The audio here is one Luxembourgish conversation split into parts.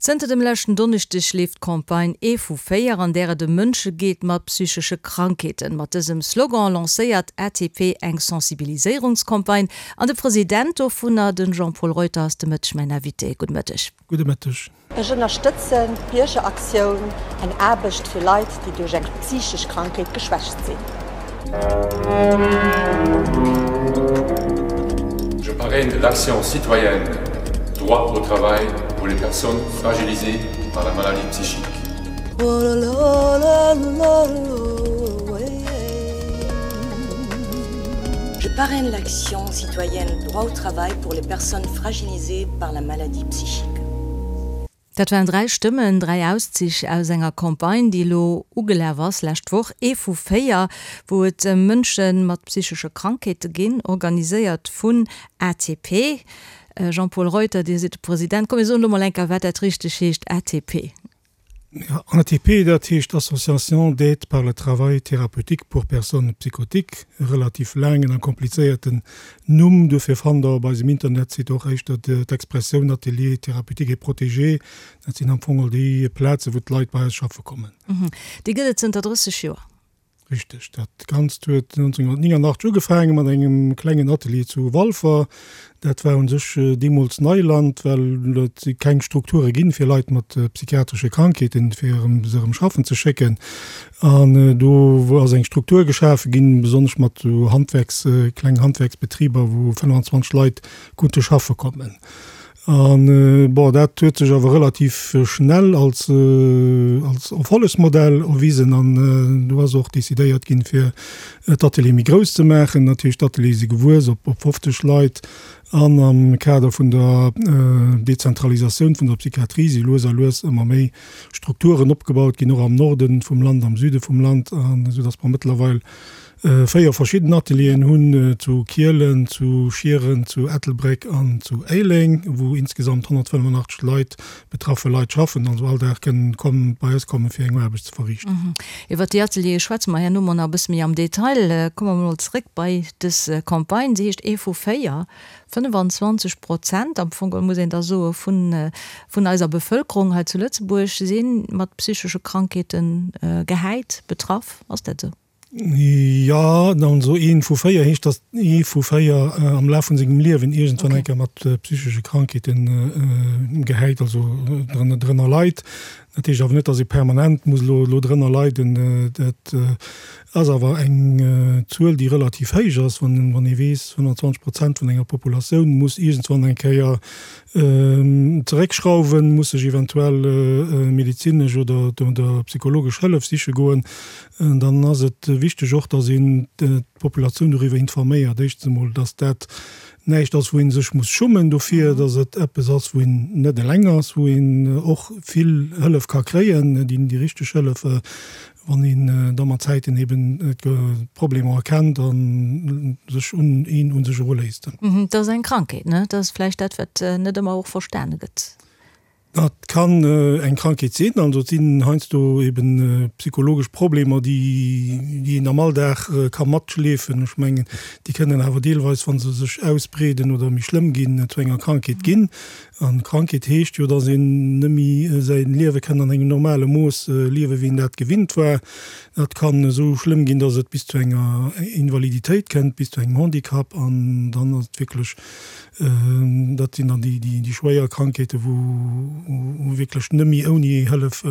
Zënter dem leschten Donneschdeg leeft d'Campagne Ee vu 4, an där et ëm Mënsche geet mat psychesche Krankheeten. Mat dësem Slogan lancéiert ATP eng Sensibiliséierungscampagne an de President dovunner, de Jean-Paul Reuter, ass de Mëtteg mäin Invité. Gudde Mëtteg. Gudde Mëtteg. Ech ënnerstëtzen d'Biergeraktioun, eng Aarbecht fir Leit, déi duerch eng psychesch Krankheet geschwächt sinn. Je parraine l'action citoyenne Droit au travail pour les personnes fragilisées par la maladie psychique. Je parraine l'action citoyenne Droit au travail pour les personnes fragilisées par la maladie psychique. Dat waren 3 Stëmmen, 3 Auszich aus enger Campagne, déi elo ugelaf ass lescht Woch, ee vu 4, wou et ëm Mënsche mat psychesche Krankheete ginn, organiséiert vun ATP. Jean-Paul Reuter, Dir sidd de President. Komm mir soen elo mol eng Kéier, wat dat richteg heescht, ATP. ATP, dat heescht Association d'aide par le travail thérapeutique pour personnes psychotiques, e relativ laangen a komplizéierten Numm. Dofir fannt Der op eisem Internetsite och éischter d'Expressioun Atelier thérapeutique et protégé. Dat sinn am Fong all déi Plazen, wou d'Leit bei eis schaffe kommen. Déi gëtt et zënter 30 Joer. Richteg. Dat Ganzt huet 1989 ugefaange mat engem klengen Atelier zu Walfer. Dat war u sech deemools Neiland, well et keng Strukture ginn, fir Leit mat psychiatresche Krankheeten, fir se erëm schaffen ze schécken. An do ass eng Struktur geschafe ginn, besonnesch mat esou Handwerks, klengen Handwerksbetriber, wou 25 Leit konnte schaffe kommen. An, bon, dat huet sech awer relativ schnell als, als Erfollegsmodell erwisen an do ass och decidéiert ginn, fir d'Ateliere méi grouss ze maachen. Dat heescht, d'Ateliere si gewuess op, op 50 Leit an am Kader vun der Dezentralisatioun vun der Psychiatrie si lues a lues ëmmer méi Strukturen opgebaut ginn, och am Norde vum Land, am Süde vum Land, an esou datt mer mëttlerweil 4 verschidden Atelieren hunn, zu Kielen, zu Schieren, zu Ettelbréck an zu Éileng, wou insgesamt 185 Leit, betraffe Leit schaffen, also all Dag kënnen kommen, bei eis kommen, fir eng Aarbecht ze verriichten. Iwwert déi Ateliere schwätze mer herno mol nach e bësse méi am Detail. Komme mer mol zréck bei dës Campagne. Se heescht Ee vu 4, 25 Prozent, am Fong geholl muss een da soe vun, vun eiser Bevëlkerung hei zu Lëtzebuerg si mat psychesche Krankheete gehäit, betraff. Ass dat esou? Jo, also ee vu 4 heescht, datt ee vu 4 am Laf vun sengem Liewen iergendwann eng Kéier mat psychesche Krankheete gehäit, also drënner leit. Dat heescht awer net, datt ee permanent muss elo drënner leiden. Dat ass awer eng Zuel, déi relativ héich ass, wann ee weess, 25 Prozent vun enger Populatioun muss iergendwann eng Kéier zeréckschrauwen, muss sech eventuell medezinesch oder psychologesch Hëllef siche goen. Dann ass et wichteg och, dass een d'Populatioun doriwwer informéiert. Éischtens emol, dass dat näischt ass, wou ee sech muss schummen dofir, dass et eppes ass, wou een net eleng ass, wou een och vill Hëllef ka kréien, déi richteg Hëllef, wann een da mat Zäiten eben d'Problemer erkennt a sech un een u sech eruléisst. Et ass eng Krankheet, ne? Dat ass vläicht dat, wat net ëmmer och verstane gëtt. Dat kann eng Krankheet sinn. Also et sinn heiansdo eben psychologesch Problemer, déi déi een am Alldag ka matschleefen. Ech mengen, déi kënnen awer deelweis, wa se sech ausbreeden oder méi schlëmm ginn, zu enger Krankheet ginn. An Krankheet heescht jo, datt een net méi säi Liewe kënn an engem normale Mooss liewen, wéi een dat gewinnt war. Dat kann esou schlëmm ginn, datt et bis zu enger Invaliditéit kënnt, bis zu engem Handicap. An dann ass et wierklech Dat sinn dann déi schwéier Krankheeten, wou wierklech net méi ouni Hëllef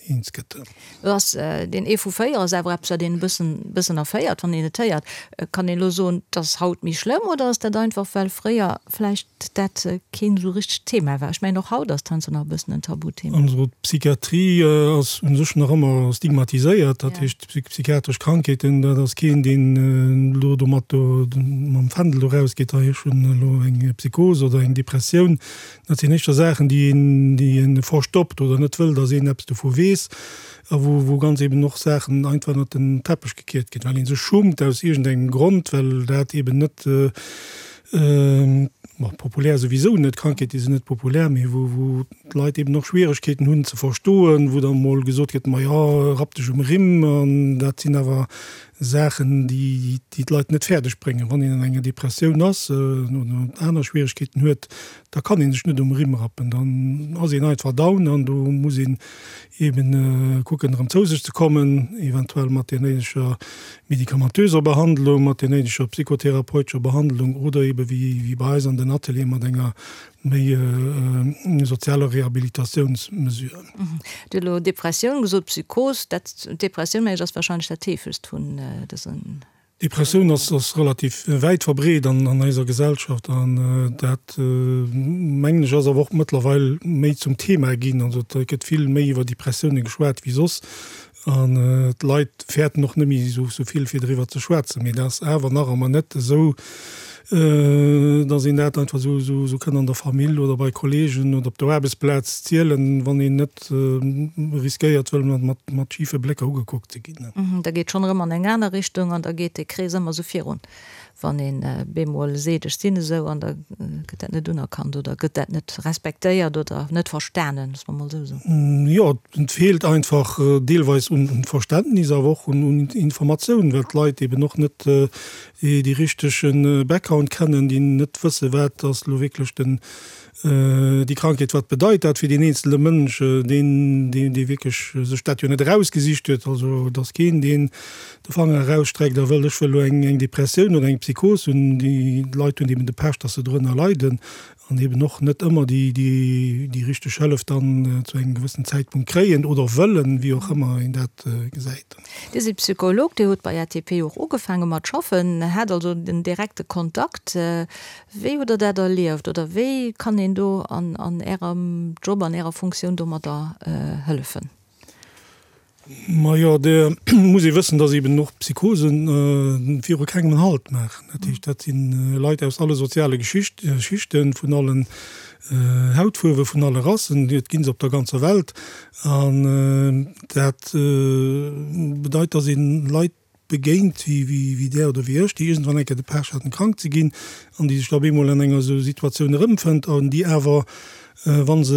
eens gëtt. Lo ass deen ee vu 4 ass awer eppes, wat een e bëssen, bëssen erféiert, wann een et héiert. Kann een elo soen, et ass haut méi schlëmm oder ass dat einfach, well fréier vläicht dat keen esou richtegt Thema war? Ech mengen, och haut ass et heiansdo nach e bëssen en Tabuthema. Also d'Psychiatrie ass u sech nach ëmmer stigmatiséiert. Dat heescht, Psychiatresch Krankheeten, dat ass keen, deen elo domat do mam Fändel do rausgeet, hei ech hunn elo eng Psychos oder eng Depressioun. Dat sinn éischter Saachen, déi een, déi ee verstoppt oder net wëll, datt een eppes dovu weess a wou, wou ganz eben och Saachen einfach ënnert den Teppech gekiert ginn, well ee sech schummt aus iergendengem Grond, well dat eben net, bon, populär souwisou net, Krankheete sinn net populär, mee wou, wou d'Leit eben och Schwieregkeeten hunn ze verstoen, wou da mol gesot gëtt, ma jo, rapp dech um Rimm. An dat sinn awer. Saachen, déi d'Leit net fäerdeg bréngen. Wann een an enger Depressioun ass oder aner Schwieregkeeten huet, da kann ee sech net um Rimm rappen, dann ass een einfach down an do muss een eben kucken erëm zou sech ze kommen, eventuell mat där néideger medikamentöser Behandlung, mat där néideger psychotherapeutescher Behandlung oder ebe wéi bei eis an den Ateliere mat enger méi sozialer Rehabilitatiounsmesure. Dir hutt elo Depressioun gesot, Psychos. Dat, d'Depressioun, mengen ech, ass wahrscheinlech dat heefegst vun dësen. Depressioun ass relativ wäit verbreet an eiser Gesellschaft an dat, mengen ech, ass awer och mëttlerweil méi zum Thema ginn. Also et gëtt vill méi iwwer Depressioune geschwat wéi soss an d'Leit fäerten och net méi esou vill fir driwwer ze schwätzen. Mee dat ass awer nach ëmmer net esou, dass een dat einfach esou kënn an der Famill oder bei Kollegen oder op der Aarbechtsplaz zielen, wann een net riskéiert wëll mat schife Blécker ugekuckt ze ginn. Da geet schonn erëm an eng aner Richtung an da geet dee Krees ëmmer esou virun. Wann een bemol seet, ech sinn esou, an da gëtt dat net unerkannt oder gëtt dat net respektéiert oder net verstanen, loosse mer mol esou soen. Jo, et feelt einfach deelweis un Verständnis, awer och un Informatioun, well d'Leit eben och net déi richtege Background kennen, déi net wësse wat ass elo wierklech den, déi Krankheet, wat bedeit dat fir deen eenzele Mënsch, deen, dee wierklech sech dat jo net erausgesicht huet. Also et ass keen, deen de Fanger erausstreckt a wëll, ech wëll elo eng Depressioun oder eng Psychos hunn. Déi Leit hunn eben de Pech, datt se drënner leiden an eben och net ëmmer déi richteg Hëllef dann zu engem gewëssenen Zäitpunkt kréien oder wëllen, wéi och ëmmer een dat gesäit. Dir sidd Psycholog, Dir hutt bei ATP och ugefaange mat schaffen, hat also den direkte Kontakt. Wéi hutt Der dat erlieft oder wéi kann een do an Ärem Job, an Ärer Funktioun domadder hëllefen? Majo, do muss ee wëssen, dass eben och Psychosen viru kengem en Halt maachen. Dat heescht, dat si Leit aus alle soziale Schichten, vun allen Hautfuerwen, vun alle Rassen, et gi se op der ganzer Welt. An dat bedeit, dass ee Leit begéint wéi där oder wéi ech, déi iergendwann eng Kéier de Pech haten, krank ze ginn an déi sech da op eemol an enger esou Situatioun erëmfënnt an déi awer, wa se,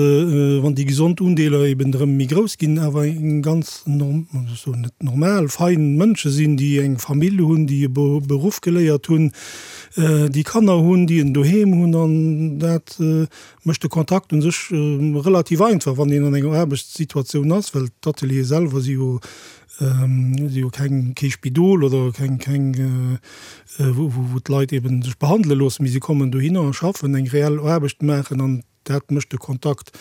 wann déi gesond Undeeler eben erëm méi grouss ginn, awer eng ganz, ech soen net normal, fein Mënsche sinn, déi eng Famill hunn, déi e Beruff geléiert hunn, déi Kanner hunn, déi en Doheem hunn an dat mécht de Kontakt u sech relativ einfach, wann een an enger Aarbechtssituatioun ass, well d'Ateliere selwer si jo Si hu keng, kee Spidol oder keng, keng, wou, wou d'Leit eben sech behandele loossen, mee si kommen dohinner a schaffen, eng reell Aarbecht maachen an dat mécht de Kontakt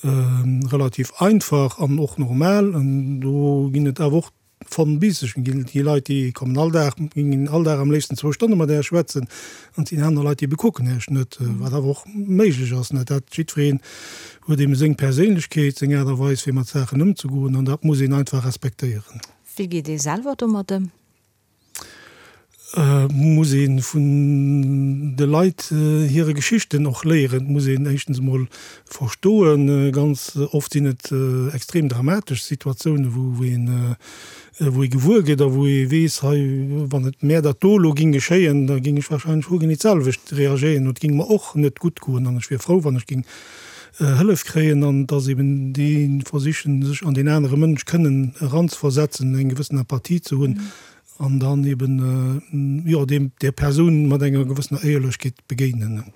relativ einfach an och normal. An do ginn et awer och von bis. Ech ginn déi Leit, déi kommen all Dag, ginn all Dag am léifsten zwou Stonne mat Äech schwätzen an et sinn aner Leit, déi bekucken Äech net, wat awer och méiglech ass, net dat jiddwereen huet eben seng Perséinlechkeet, seng Aart a Weis fir mat Saachen ëmzegoen an dat muss een einfach respektéieren. Wéi geet ee selwer domat ëm? Et muss ee vun de Leit hire Geschichten och léieren. Et muss een éischtens emol verstoen, ganz oft sinn et extrem dramatesch Situatiounen, wou een, wou ee gewuer gëtt a wou ee weess, hei, wann et mär dat do elo géing geschéien, da géing ech wahrscheinlech hogenee d'selwecht reagéieren, et géing mer och net gutt goen an ech wier frou, wann ech géing Hëllef kréien an dass eben déi versichen, sech an deen anere Mënsch kënnen eranzeversetzen, eng gewëssen Empathie ze hunn an dann eben, jo, deem, där Persoun mat enger gewëssener Éierlechkeet begéinen.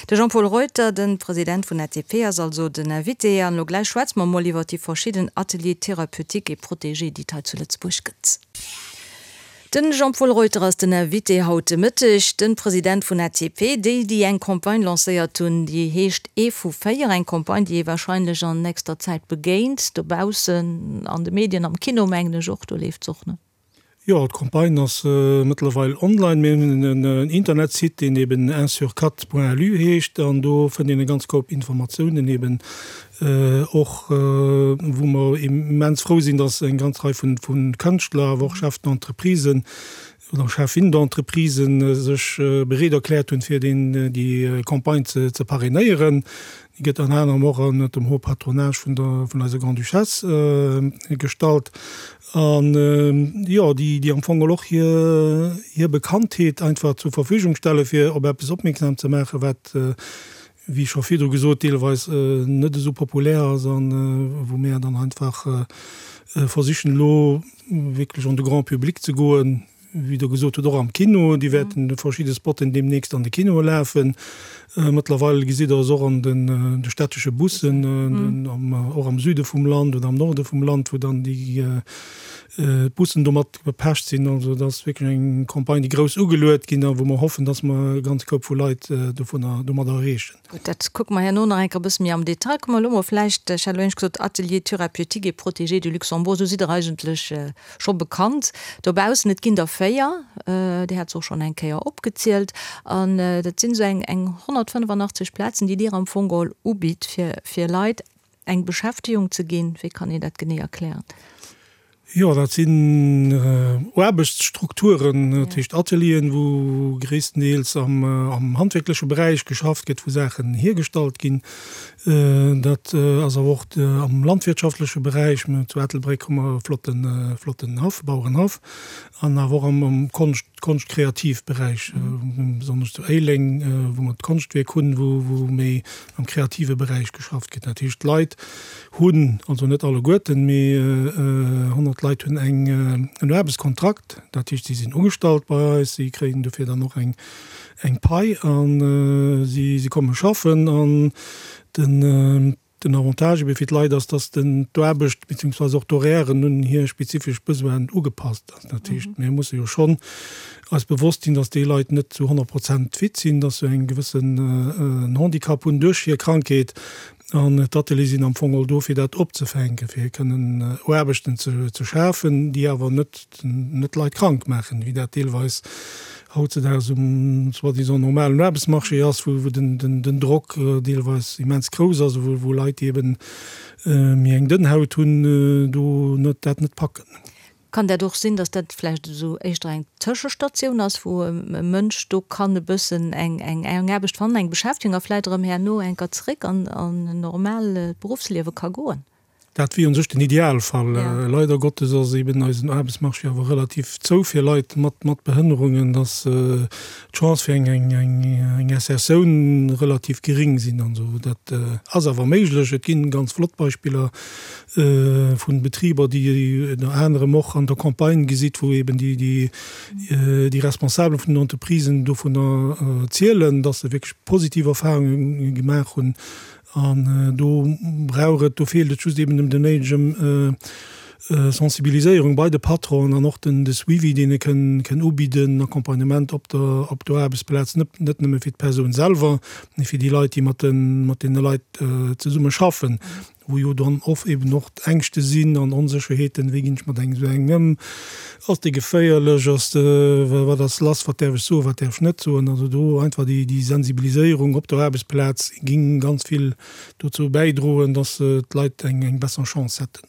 De Jean-Paul Reuter, de President vun ATP, ass also den Invité. An elo gläich schwätze mer emol iwwer déi verschidden Ateliers thérapeutiques et protégés, déi et hei zu Lëtzebuerg gëtt. Den Jean-Paul Reuter ass den Invité haut de Mëtteg, den President vun ATP, déi déi eng Campagne lancéiert hunn, déi heescht Ee vu 4, eng Campagne déi ee wahrscheinlech an nächster Zäit begéint dobaussen an de Medien, am Kino mengen ech och, do leeft se och, ne? Jo, d'Campagne ass mëttlerweil online. Mir hunn en Internetsite, deen eben unsurquatre.lu heescht an do fënnt een e ganz Koup Informatiounen eben Och wou mer immens frou sinn, dass eng ganz Rei vu Kënschtler, awer och Chefs d'entreprisen oder Cheffin d'entreprisen sech bereet erkläert hunn, fir déi Campagne ze parrainéieren. Déi gëtt ënner anerem och ënnert dem Haut Patronage vun der vun eiser Grande-Duchesse gestallt. An jo, déi am Fong och hir Bekanntheet einfach zur Verfügung stelle fir op eppes opmierksam ze maachen, wat. wéi scho virdru gesot, deelweis net esou populär ass an wou mir dann einfach versichen elo wierklech an de Grand public ze goen, wéi Der gesot hutt, och am Kino. Déi wäerten verschidde Spotten deemnächst an de Kinoe lafen. Mëttlerweil gesitt Der se och an de städtesche Bussen, och am Süde vum Land oder am Norde vum Land, wou dann déi d'Bussen domat bepecht sinn. Also et ass wierklech eng Campagne, déi grouss ugeluet ginn a wou mer hoffen, dass mer e ganz Koup vu Leit dovunner domadder erreechen. Gutt, dat kucke mer herno nach eng Kéier e bësse méi am Detail. Komme mer elo mol vläicht, ech hat elo éinescht gesot, Atelier thérapeutique et protégé du Luxembourg, esou sidd Der eigentlech scho bekannt dobaussen. Et ginn der 4, Dir hat se och schonn eng Kéier opgezielt. An dat sinn esou eng 185 Plazen, déi Dir am Fong geholl ubitt, fir Leit Eng Beschäftegung ze ginn, wéi kann een dat genee erklären? Jo, dat sinn Aarbechtsstrukturen, dat heescht Atelieren, wou gréisstendeels am handwierkleche Beräich geschafft gëtt, wou Saachen hiergestallt ginn. Dat ass awer och am landwirtschaftleche Beräich. Zu Ettelbréck hu mer e flotten, flotten Haff, Bauerenhaff. An awer och am Konscht, Konscht-Kreativ-Beräich, besonnesch zu Éileng, wou mer d'Konschtwierk hunn, wou méi am kreative Beräich geschafft gëtt. Dat heescht, d'Leit hunn, also net alleguerten, mee 100 Leit hunn eng, en Aarbechtskontrakt. Dat heescht, si sinn ugestallt bei eis, si kréien dofir dann och eng, eng Pai a si komme schaffen. An den. Den Avantage ebe fir d'Leit ass, dass den d'Aarbecht beziehungsweise och d'Horairen un hir spezifesch Besoinen ugepasst ass. Dat heescht, mir musse jo schonn eis bewosst sinn, dass déi Leit net zu 100 Prozent fit sinn, dass se eng gewëssen en Handicap hunn duerch hir Krankheet. An d'Ateliere sinn am Fong all do, fir dat opzefänken, fir kënnen Aarbechten ze schafen, déi awer net net d'Leit krank maachen, wéi dat deelweis hautzedaags um soi-disant normalen Aarbechtsmarché ass, wou den Drock deelweis immens grouss ass a wou Leit, déi eben méi eng dënn Haut hunn, do net dat net packen. Kann dat och sinn, datt dat vläicht esou éischter eng Tëschestatioun ass, wou e Mënsch do kann e bëssen eng Aarbecht fannen, eng Beschäftegung a vläicht erëm herno eng Kéier zeréck an en normaalt Beruffsliewe ka goen? Dat wier un sech den Idealfall. Leider Gottes ass eben eisen Aarbechtsmarché awer relativ zou fir Leit mat Behënnerungen, dass d'Chance fir eng Insertioun relativ gering sinn an esou. Dat ass awer méiglech. Et ginn ganz flott Beispiller vu Betriber, déi ënner anerem och an der Campagne gesitt, wou eben déi Responsabel vun den Entreprisen dovunner zielen, dass se wierklech positiv Erfahrunge gemaach hunn An do brauch et, do feelt et just eben un der néidegem Sensibiliséierung bei de Patronen an och den de Suivi, deen e kënn kënn ubidden, Accompagnement op der op der Aarbechtsplaz, net net nëmme fir d'Persoun selwer, mee fir déi Leit, déi mat de mat deene Leit zesumme schaffen, wou jo dann oft eben och Ängschte sinn an Onsécherheeten, wéi ginn ech mat engem esou engem ëm, ass dee geféierlech, ass de, wat ass lass, wat däerf ech soen, wat däerf ech net soen. Also do einfach déi déi Sensibiliséierung op der Aarbechtsplaz géing ganz vill dozou bäidroen, dass d'Leit eng eng besser Chance hätten.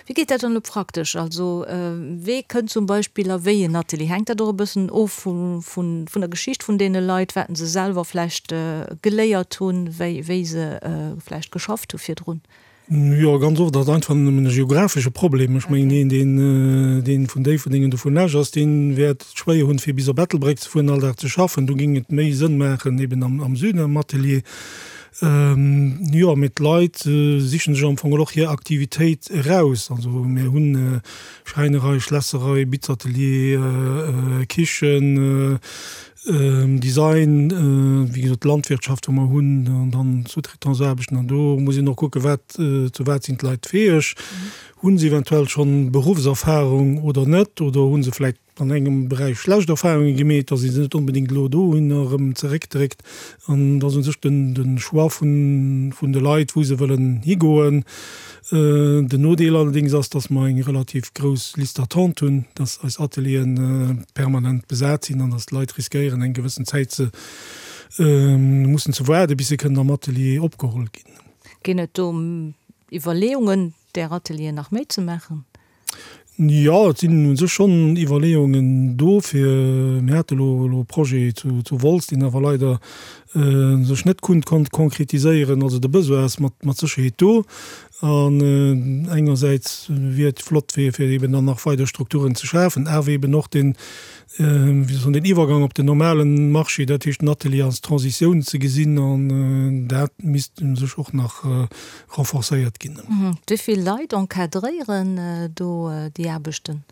Wéi geet dat dann elo praktesch? Also wee kënnt zum Beispill a wéi en Atelier? Hänkt dat och e bëssen of vun der Geschicht vun deene Leit, wat se selwer vläicht geléiert hunn, wéi wéi se vläicht geschafft hu virdrun? Jo, ganz oft ass et einfach nëmmen e geografesche Problem. Ech mengen, een, deen, deen vun Déifferdeng oder vun Esch ass, dee wäert et schwéier hunn, fir bis op Ettelbréck ze fueren, all Dag ze schaffen. Do géing et méi Sënn maachen, eben am, am Süden am Atelier. Jo, mee d'Leit sichen sech am Fong och hir Aktivitéit eraus. Also mir hunn Schräinerei, Schlässerei, Bitzatelier, Kichen, Design, wéi gesot d'Landwirtschaft wou mer hunn, an dann Sous-traitance-Aarbechten. An do muss een och kucken, wat, zu wat sinn d'Leit fäeg? Hu se eventuell schonn Beruffserfahrung oder net? Oder hu se vläicht an engem Beräich schlecht Erfahrunge gemeet, datt ee se net onbedéngt elo dohinner erëm zeréckdréckt? An et ass u sech den Choix vun de Leit, wou se wëllen higoen. Den Nodeel allerdéngs ass, dass mer eng relativ grouss Liste d'attente hunn, dass eis Atelieren permanent besat sinn an dass d'Leit riskéieren, eng gewëssen Zäit ze mussen ze waarden, bis se kënnen am Atelier opgeholl ginn. Ginn et do Iwwerleeungen, där Atelieren nach méi ze maachen? Jo, et sinn u sech schonn Iwwerleeungen do fir, mir hate elo elo e Projet zu zu Wolz, deen awer leider. sech net konnt konkretiséieren. Also de Besoin ass mat Sécherheet do. An engersäits wier et flott fir eben dann nach weider Strukturen ze schafen, awer eben och den, wéi soll den Iwwergang op den normalen Marché, dat heescht den Atelier als Transitioun ze gesinn, an dat misst u sech och nach renforcéiert ginn. Wéi vill Leit encadréieren do déi Aarbechten?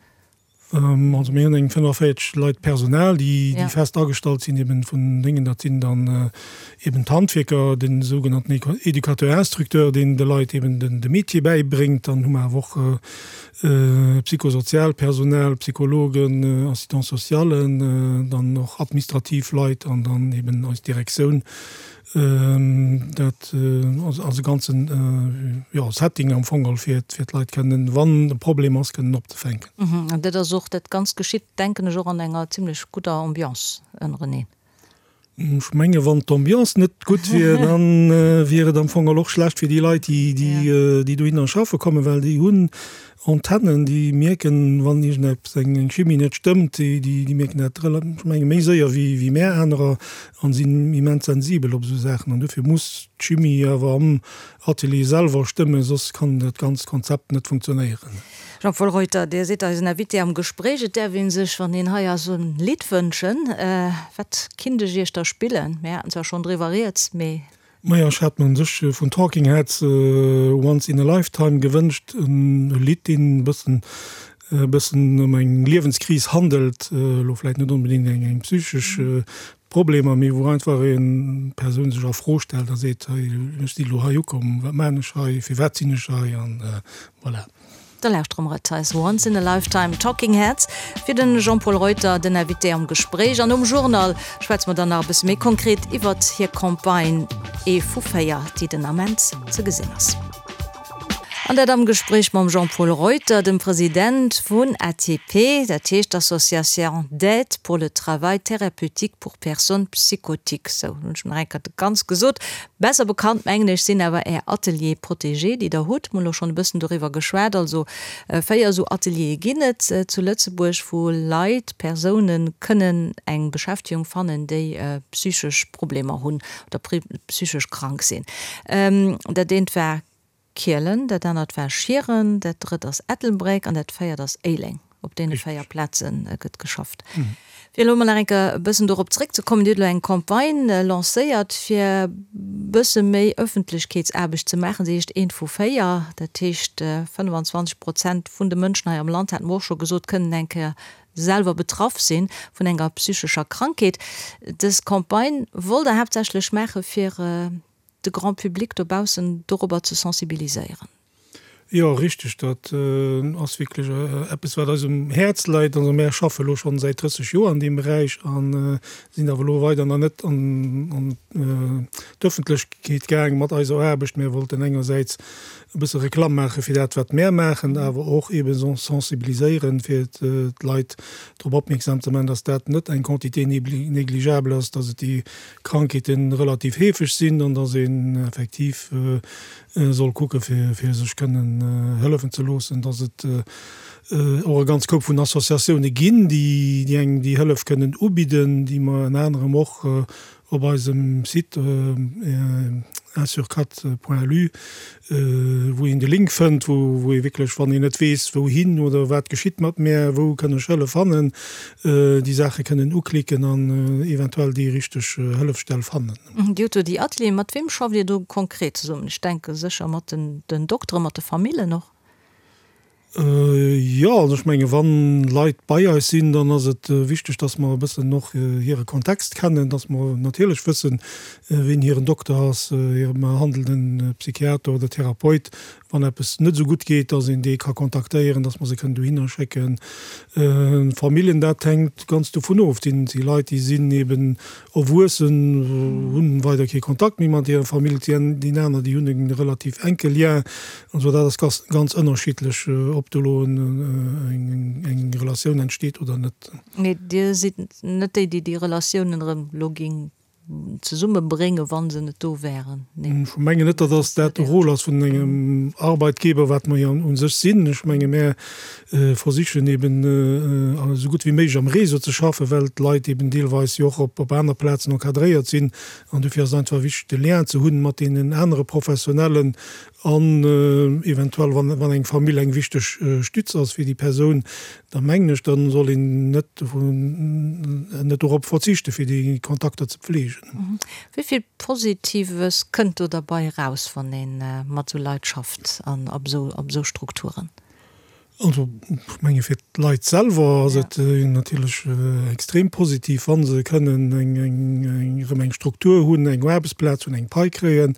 Also mir hunn eng 45 Leit Personal, déi fest agestallt sinn, eben vun déngen, dat sinn dann eben d'Handwierker, den sougenannten Éducateur instructeur, deen de Leit eben de Métier bäibréngt. Dann hu mer awer och psychosoziaalt Personal, Psychologen, Assistants-socialen, dann och administrativ Leit an dann eben eis Direktioun. Dat ass e ganzen, jo, Setting am Fong geholl, fir d'Leit kënnen, wann e Problem ass, kënnen opzefänken. An dat ass och, dat Ganzt geschitt, denken ech, och an enger zimlech gudder Ambiance ënnereneen. Ech menge wann d'Ambiance net gutt wier, da wier et am Fong geholl och schlecht fir déi Leit, déi dohinner schaffe kommen, well déi hunn Antennen, déi mierken, wann iergendeppes, eng Chimie net stëmmt, déi mierken dat, ech menge méi séier wéi mär anerer an sinn immens sensibel op esou Saachen. An dofir muss d'Chimie awer am Atelier selwer stëmmen, soss kann dat ganzt Konzept net funktionéieren. Jean-Paul Reuter, Dir sidd eisen Invité am Gespréich. Et däerf ee sech, wann een hei ass, en Lidd wënschen. Wat kinnt ech Iech da spillen? Mir haten zwar schonn driwwer rieds, mee. Majo, ech hat mer un sech vun Talking Heads Once in a Lifetime gewënscht, en Lidd deen e bëssen e bëssen ëm eng Liewenskris handelt, elo vläit net onbedéngt eng eng psychesch Problemer, mee wou einfach eng Persoun sech a Fro stellt a seet, hei ech si elo hei ukomm, wat maan ech hei, firwat sinn ech hei an voilà. Da lauschtere mer et eis Once in a Lifetime, Talking Heads, fir de Jean-Paul Reuter, den Invité am Gespréich. An nom Journal schwätze mer dann nach e bësse méi konkret iwwert hir Campagne Ee vu 4, déi den Ament ze gesinn ass. An dat am Gespréich mam Jean-Paul Reuter, dem President vun ATP, dat heescht Association d'aide pour le travail thérapeutique pour personnes psychotiques. Sou, hunn ech nach eng Kéier ganz gesot. Besser bekannt, mengen ech, sinn awer Är Ateliers protégés, déi Der hutt. Mir hunn elo schonn e bëssen doriwwer geschwat. Also 4 esou Ateliere ginn et zu Lëtzebuerg, wou Leit, Persounen kënnen eng Beschäftegung fannen, déi psychesch Problemer hunn oder psychesch krank sinn. Dat eent war Kielen, dat anert war Schieren, dat drëtt ass Ettelbréck an dat véiert ass Éileng. Op deene 4 Plaze gëtt geschafft. Fir elo emol nach eng Kéier e bëssen dorop zréckzekommen, Dir hutt elo eng Campagne lancéiert, fir e bësse méi Ëffentlechkeetsaarbecht ze maachen. Se heescht Eent vu 4. Dat heescht, 25 Prozent vun de Mënschen hei am Land, hate mer och scho gesot, kënnen eng Kéier selwer betraff si vun enger psychescher Krankheet. Dës Campagne wollt Der haaptsächlech maache fir de Grand public dobaussen dorobber ze sensibiliséieren. Jo, richteg, dat ass wierklech eppes, wat eis um Häerz läit. Also mär schaffe elo schonn säit 30 Joer an deem Beräich a sinn awer elo weider nach net an d'Ëffentlechkeet gaang mat eiser Aarbecht. Mär wollten engersäits e bësse Reklamm maache fir dat, wat mär maachen, awer och eebe sensibiliséieren, fir d'Leit drop opmierksam ze maachen, dass dat net eng Quantité négligeable ass, dass et déi Krankheeten relativ heefeg sinn an dass een effektiv soll kucke fir sech kënnen hëllefen ze loossen, dass et och e ganz Koup vun Associatioune ginn, déi engem déi Hëllef kënnen ubidden, déi mer ënner anerem och op eisem Site unsurquatre.lu, wou een de Link fënnt, wou ee wierklech, wann een net weess wouhin oder wat geschitt mat mär, wou kënn ech Hëllef fannen, déi Saache kënnen uklicken an eventuell déi richteg Hëllefsstell fannen. Dir hutt do déi Atelieren. Mat weem schafft Dir do konkret zesummen? Ech denke sécher mat den Dokteren, mat de Famillen och? Jo, also ech menge wann Leit bei eis sinn, dann ass et wichteg, datt mer e bëssen och hire Kontext kennen, datt mer natierlech wëssen, wien hiren Dokter ass, hire behandelnden Psychiater oder Therapeut, wann eppes net esou gutt geet, datt een dee ka kontaktéieren, datt mer se kënnen dohinner schécken. Familljen, dat hänkt ganz dovun of. Et si Leit, déi sinn eben Erwuessen hunn weider kee Kontakt méi mat hirer Famill, déi aner déi hunn e relativ enke Lien. Also dat ass ganz ënnerschiddlech, ob do elo eng Relatioun entsteet oder net. Mee Dir sidd net déi, déi déi Relatiounen erëm elo géing. Zesummebréngen, wa se net do wären? Nee. Ech mengen net, datt ass dat de Rôle ass vun engem Arbeitgeber, wat mer jo u sech sinn. Ech menge mär versichen eben esou gutt wéi méiglech am Réseau ze schaffen, well d'Leit eben deelweis jo och op aner Plazen encadréiert sinn. An dofir ass et einfach wichteg, de Lien ze hunn mat deenen anere Professionellen an eventuell, wann eng Famill eng wichteg Stütz ass fir déi Persoun, da mengen ech, da soll een net net dorop verzichten, fir déi Kontakter ze pflegen. Wéi vill Positives kënnt do derbei eraus, wann ee mat esou Leit schafft an op esou Strukturen? Also, ech menge fir d'Leit selwer ass et natierlech extrem positiv, wa se kënnen eng, eng, erëm eng Struktur hunn, eng Aarbechtsplaz hunn, eng Pai kréien,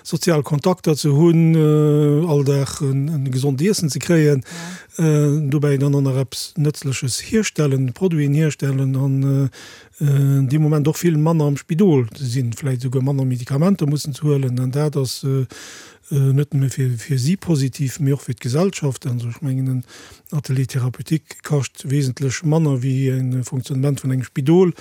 sozial Kontakter ze hunn, all Dag e gesond Iessen ze kréien, dobäi dann och nach eppes Nëtzleches hierstellen, Produiten hierstellen an dee Moment och vill manner am Spidol ze sinn, vläicht esouguer manner Medikamenter mussen ze huelen. An dat ass net nëmme fir si positiv, mee och fir d'Gesellschaft. Also ech mengen, en Atelier thérapeutique kascht wesentlech manner wéi e Fonctionnement vun engem Spidol.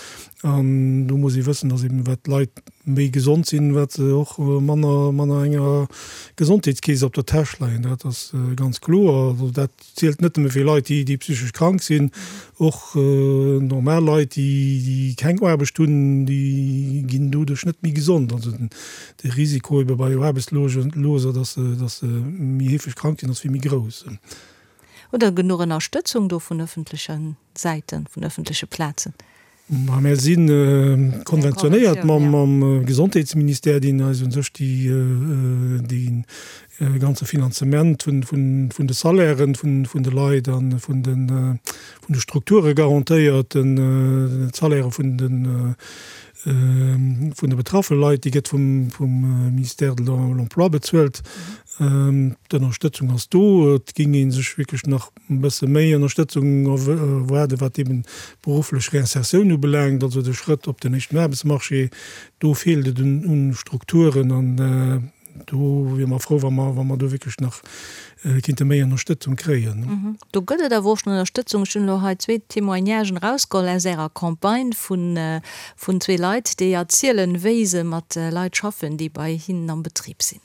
An do muss ee wëssen, dass eben wat d'Leit méi gesond sinn, wat se och manner manner enger Gesondheetskeess op der Täsch leien. Dat ass ganz kloer. Also dat zielt net nëmme fir Leit, déi déi psychesch krank sinn, och normal Leit, déi déi keng Aarbecht hunn, déi ginn doduerch net méi gesond. Also den de Risiko ebe bei Aarbechtsloser, dass se dass se méi heefeg krank sinn, ass vill méi grouss. Hutt Der genuch Ënnerstëtzung do vun ëffentleche Säiten, vun ëffentleche Plazen? Ma mir si konventionéiert mam Gesondheetsministère, deen eis u sech dee ganze Finanzement vun de Salairen vun de Leit a vun de Strukture garantéiert. D'Salaire vun de vun de betraffe Leit, déi gëtt vum Ministère de l'Emploi bezuelt. D'Ënnerstëtzung ass do. Et géing ee sech wierklech nach e bësse méi Ënnerstëtzung erwaarden, wat eben d'berufflech Reinsertioun ubelaangt, also de Schrëtt op den éischten Aarbechtsmarché. Do feelt et un Strukturen an do wiere mer frou, wa mer, wa mer do wierklech nach kinnte méi Ënnerstëtzung kréien. Do gëtt et awer och schonn Ënnerstëtzung. Ech hunn elo hei zwee Témoignagen erausgeholl aus Ärer Campagne vun, vun zwee Leit, déi erzielen, wéi se mat Leit schaffen, déi bei hinnen am Betrib sinn.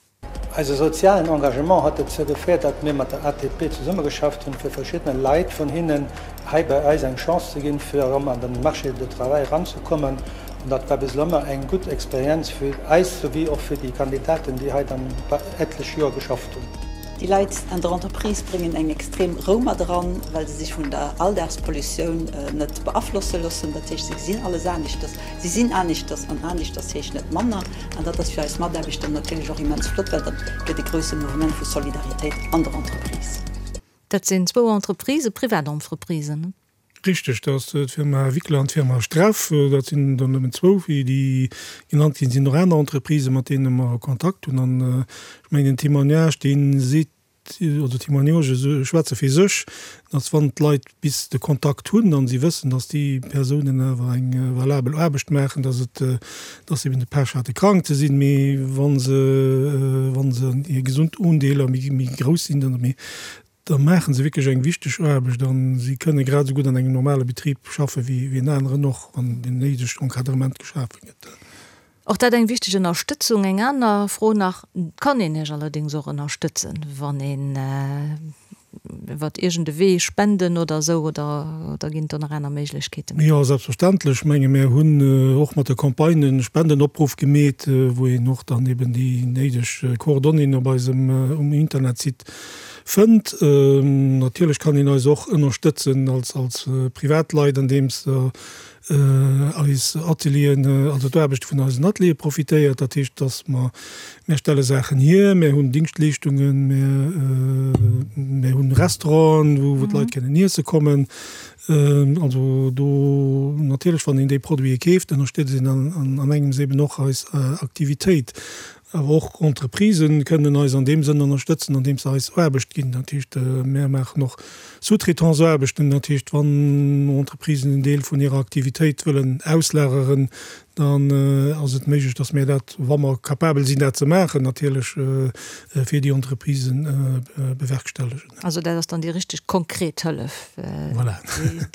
Eise sozialen Engagement huet dozou geféiert, datt mir mat der ATP zesummegeschafft hunn, fir verschiddene Leit vun hinnen hei bei eis eng Chance ze ginn, fir erëm an den Marché de travail eranzekommen. An dat war bis elo ëmmer eng gutt Experienz fir eis souwéi och fir déi Kandidaten, déi hei dann etlech Joer geschafft hunn. Déi Leit an der Entreprise bréngen eng extrem Rou mat eran, well se sech vun der Alldagspollutioun net beaflosse loossen. Dat heescht, se gesinn alles aneschters, se sinn aneschters an aneschters heescht net manner. An dat ass fir eis Mataarbechter natierlech och immens flott, well dat gëtt e grousse Mouvement vu Solidaritéit an der Entreprise. Dat sinn zwou Entreprisen, privat Entreprisen, ne? Richteg, dat ass d'Firma Wickler an d'Firma Streff. Dat sinn der nëmmen zwou, wéi déi genannt ginn. Et sinn och aner Entreprisen, mat deene mer Kontakt hunn. An ech mengen, den Témoignage, dee seet, oder Témoignagë schwätze fir sech, dass wann d'Leit bis de Kontakt hunn an si wëssen, dass déi Persounen awer eng valabel Aarbecht maachen, dass et, dass se eben de Pech hate krank ze sinn, mee wa se, wa se hir gesond Undeeler méi, méi grouss sinn, dann, mee da maache se wierklech eng wichteg Aarbecht a si kënne grad esou gutt an engem normale Betrib schaffe wéi en aneren och, wann deen néidegt Encadrement geschafe gëtt. Och dat eng wichteg Ënnerstëtzung. Eng aner Fro nach, Kann een Iech allerdéngs och ënnerstëtzen, wann een iwwert iergend e Wee, Spenden oder esou, oder oder ginn et do nach aner Méiglechkeeten? Jo, selbstverständlech. Ech menge mir hunn och mat der Campagne e Spendenopruff gemeet, wou een och dann eben déi néideg Coordonnéeën op eisem um Internetsite fënnt. Natierlech kann een eis och ënnerstëtzen als als Privatleit, andeems eis Atelieren, also d'Aarbechte vun eisen Ateliere profitéiert. Dat heescht, dass mer, mir stelle Saachen hier, mir hunn Dingschtleeschtungen, mir, mir hunn Restauranten, wou, wou d'Leit kënnen iesse kommen. Also do natierlech, wann een déi Produite keeft, ënnerstëtzt een an, an engems eben och eis Aktivitéit. Awer och Entreprisë kënnen eis an deem Sënn ënnerstëtzen, andeems se eis Aarbecht ginn. Dat heescht, mär maachen och Sous-traitance-Aarbechten. Dat heescht, wann Entreprisen en Deel vun hirer Aktivitéit wëllen auslageren, Dann ass et méiglech, dass mir dat, wa mer capabel sinn dat ze maachen, natierlech fir déi Entreprisen bewerkstellegen. Also dat ass dann déi richteg konkret Hëllef,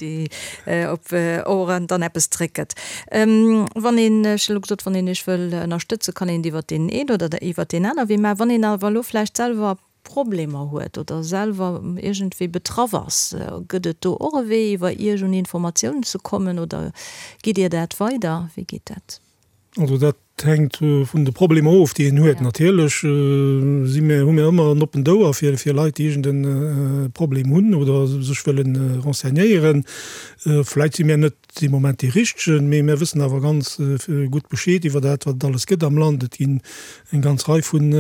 déi op och dann eppes zréckgëtt. Wann een, ech hu elo gesot, wann een Iech wëll ënnerstëtzen, kann een et iwwert deen een oder iwwert deen aner Wee maachen. Wann een awer elo vläicht selwer Problemer huet oder selwer iergendwéi betraff ass, gëtt et do och e Wee iwwer Iech un Informatiounen ze kommen oder gitt Dir dat weider? Wéi geet dat? Also dat hänkt vun de Problemer of, déi een huet. Natierlech si mir, hu mir ëmmer en oppent Ouer fir fir Leit, déi iergend e Problem hunn oder sech wëlle renseignéieren. Vläit si mir net dee Moment dee richtegen, mee mir wëssen awer ganz gutt Bescheed iwwer dat, wat et alles gëtt am Land. Et ginn eng ganz Rei vun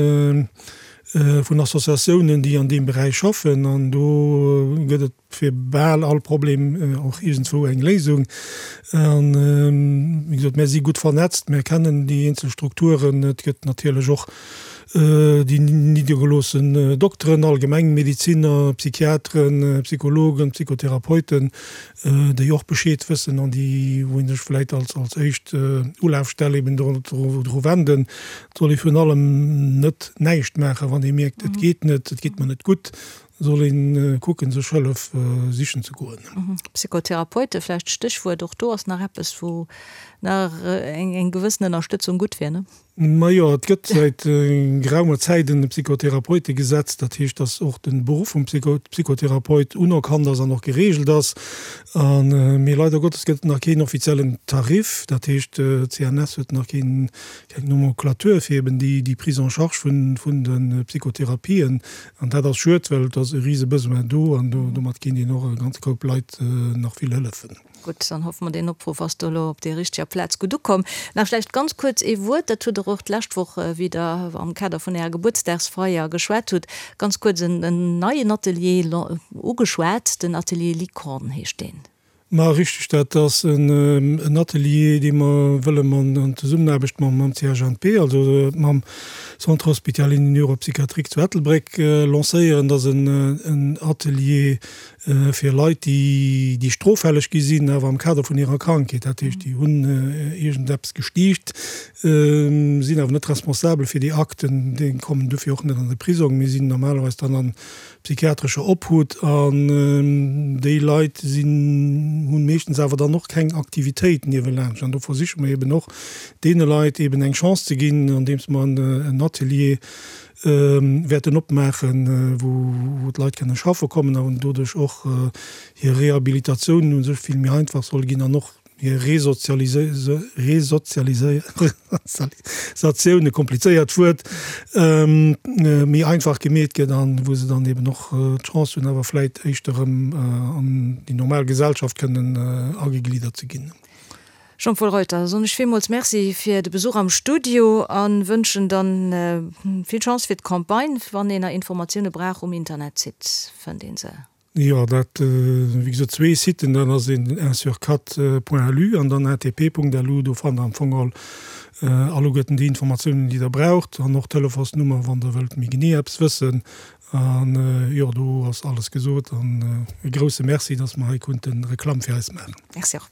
vun Associatiounen, déi an deem Beräich schaffen, an do gëtt et fir bal all Problem och iergendswou eng Léisung. An, wéi gesot, mär si gutt vernetzt, mär kennen déi eenzel Strukturen. Et gëtt natierlech och déi niddergeloossen Dokteren, Allgemengmediziner, Psychiateren, Psychologen, Psychotherapeuten, déi och Bescheed wëssen an déi, wou ee sech vläit als als éischt Ulafstell eben dru wenden. Et soll ee virun allem net näischt maachen, wann ee mierkt, et geet net, et geet mer net gutt, soll ee kucken, sech Hëllef sichen ze goen. Psychotherapeute vläicht Stéchwuert, och do ass nach eppes, wou nach eng gewëssen Ënnerstëtzung gutt wier, ne? Majo, et gëtt säit geraumer Zäit en Psychotherapeutegesetz. Dat heescht, datt och de Beruff vum Psychotherapeut unerkannt ass an och gereegelt ass. A mee leider Gottes gëtt et nach keen offiziellen Tarif. Dat heescht, d'CNS huet nach keen, keng Nomenclature fir eben déi, déi Prise en charge vun, vun de Psychotherapien. An dat ass schued, well et ass e rise Besoin do an do, domat kéint een och e ganze Koup Leit nach vill hëllefen. Gutt, dann hoffe mer, deen Opruff ass do elo op der richteger Plaz gutt ukomm. Nach vläicht ganz kuerz ee Wuert, dat hutt Der och d'lescht Woch, wéi Der am Kader vun Ärer Gebuertsdagsfeier geschwat hutt, ganz kuerz en neien Atelier ugeschwat, den Atelier Licorne heescht deen. Ma richteg, dat ass en Atelier, dee mer wëllen an Zesummenaarbecht mam CHNP, also mam Centre hospitalier neuropsychiatrique zu Ettelbréck, lancéieren. Dat ass en Atelier fir Leit, déi stroffälleg gi sinn, awer am Kader vun hirer Krankheet, dat heescht, déi hunn iergendeppes gestiicht, sinn awer net responsabel fir déi Akten, déi kommen dofir och net an de Prisong, mee sinn normalerweis dann a psychiatrescher Obhut. An déi Leit sinn, hu meeschtens awer dann och keng Aktivitéit niewelaanscht. An do versiche mer eeben och, deene Leit eeben eng Chance ze ginn, andeems mer en Atelier wäerten opmaachen, wou d'Leit kënne schaffe kommen an doduerch och hir Rehabilitatioun u sech vill méi einfach soll ginn an och hir Resozialisatioun, e komplizéiert Wuert, méi einfach gemeet gëtt an wou se dann eben och d'Chance hunn, awer vläit éischter erëm an déi normal Gesellschaft kënnen agegliddert ze ginn. Jean-Paul Reuter, soen ech villmools Merci fir de Besuch am Studio a wënschen dann vill Chance fir d'Campagne. Wann een nach Informatioune brauch, um Internetsite fënnt een se. Jo, dat, wéi gesot, zwee Siten, dat ass een un-sur-quatre.lu an dann atp.lu. Do fannt der am Fong all alleguerten déi Informatiounen, déi der braucht an och d'Telefonsnummer, wann der wëllt méi genee eppes wëssen. An jo, do ass alles gesot an e grousse Merci, dass mer hei konnte Reklamm fir eis maachen. Merci och.